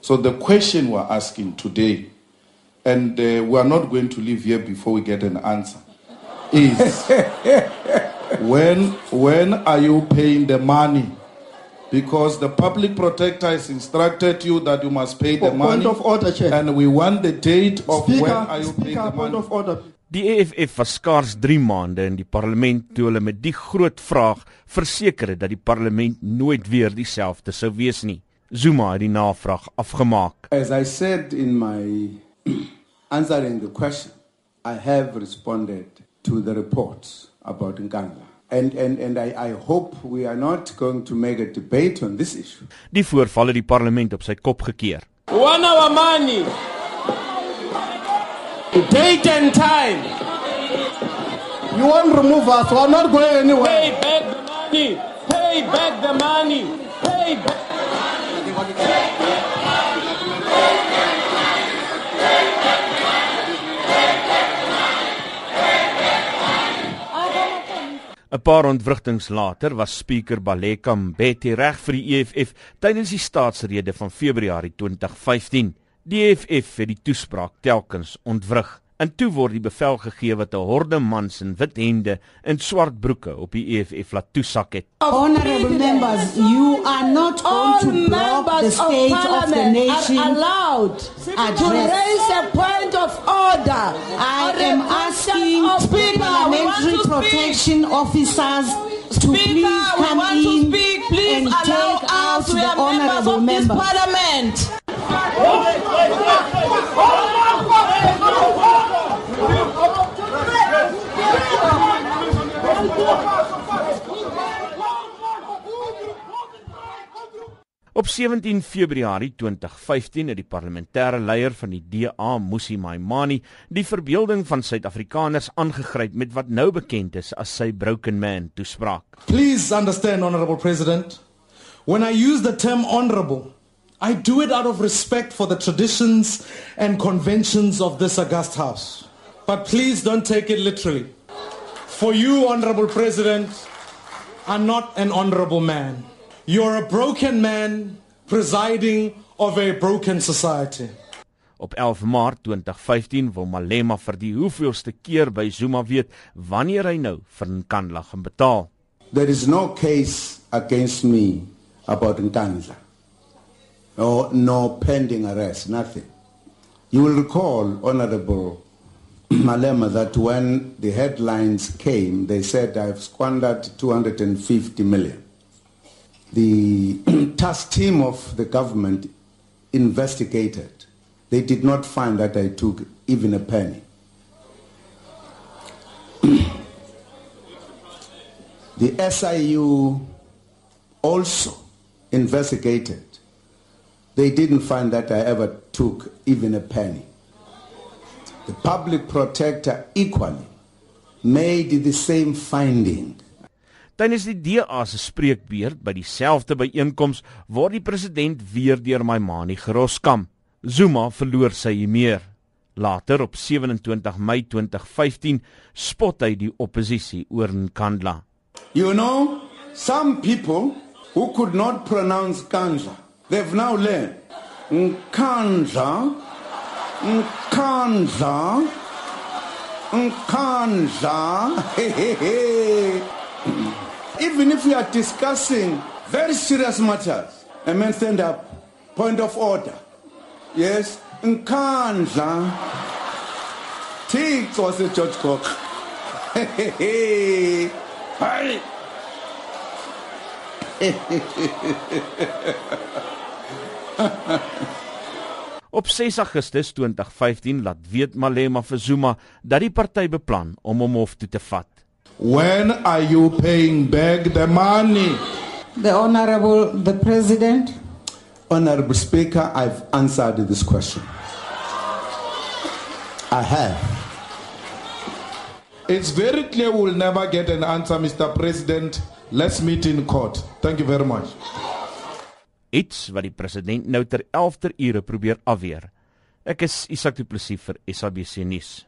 So the question we're asking today, and we are not going to leave here before we get an answer, is when are you paying the money? Because the public protector has instructed you that you must pay the money. Point of order, Chair. And we want the date of Speaker, when are you paying the point money. of order. Die EFF was skaars 3 maande in die parlement toe hulle met die groot vraag verseker het dat die parlement nooit weer dieselfde sou wees nie. Zuma het die navraag afgemaak. As I said in my answering the question, I have responded to the reports about Nkandla. And I hope we are not going to make a debate on this issue. Die voorval het die parlement op sy kop gekeer. We want our money. Date and time. You won't remove us. We're not going anywhere. Pay back the money. Pay back the money. Pay back. 'n Paar ontwrigtings later was Speaker Baleka Mbete reg vir die EFF tydens die staatsrede van Februarie 2015. Die EFF het die toespraak telkens ontwrig. En toe word die bevel gegee wat 'n horde mans in wit hemde en swart broeke op die EFF laat toesak het. Honorable members, you are not going to block the state of the nation allowed to raise a point of order. I am asking parliamentary protection officers to please come in and take out the honorable member. Parliament. Op 17 Februarie 2015 het die parlementêre leier van die DA, Mmusi Maimane, die verbeelding van Suid-Afrikaners aangegryp met wat nou bekend is as sy Broken Man toespraak. Please understand, Honorable President, when I use the term honorable, I do it out of respect for the traditions and conventions of this august house. But please don't take it literally. For you, Honorable President, are not an honorable man. You're a broken man presiding over a broken society. Op 11 Maart 2015 wil Malema vir die hoeveelste keer by Zuma weet wanneer hy nou vir Nkandla gaan betaal. There is no case against me about Nkandla. No pending arrest, nothing. You will recall, Honorable Malema, that when the headlines came, they said I've squandered 250 million. The task team of the government investigated. They did not find that I took even a penny. The SIU also investigated. They didn't find that I ever took even a penny. The public protector equally made the same finding. Tydens die DA se spreekbeurt by dieselfde byeenkoms word die president weer deur Maimane geroskam. Zuma verloor sy meer. Later op 27 Mei 2015 spot hy die oppositie oor Nkandla. You know, some people who could not pronounce Nkandla, they've now learned Nkandla, Nkandla, Nkandla. Even if we are discussing very serious matters, a man stand up, point of order. Yes, Nkandla. Tix was a George Cook. Hi. Op 6 Augustus 2015 laat weet Malema vir Zuma dat die party beplan om hom hof toe te vat. When are you paying back the money? The President. Honorable Speaker, I've answered this question. I have. It's very clear we'll never get an answer, Mr. President. Let's meet in court. Thank you very much. Iets wat die president nou ter 11 ure probeer afweer. Ek is Isak Du Plessis vir SABC Nuus.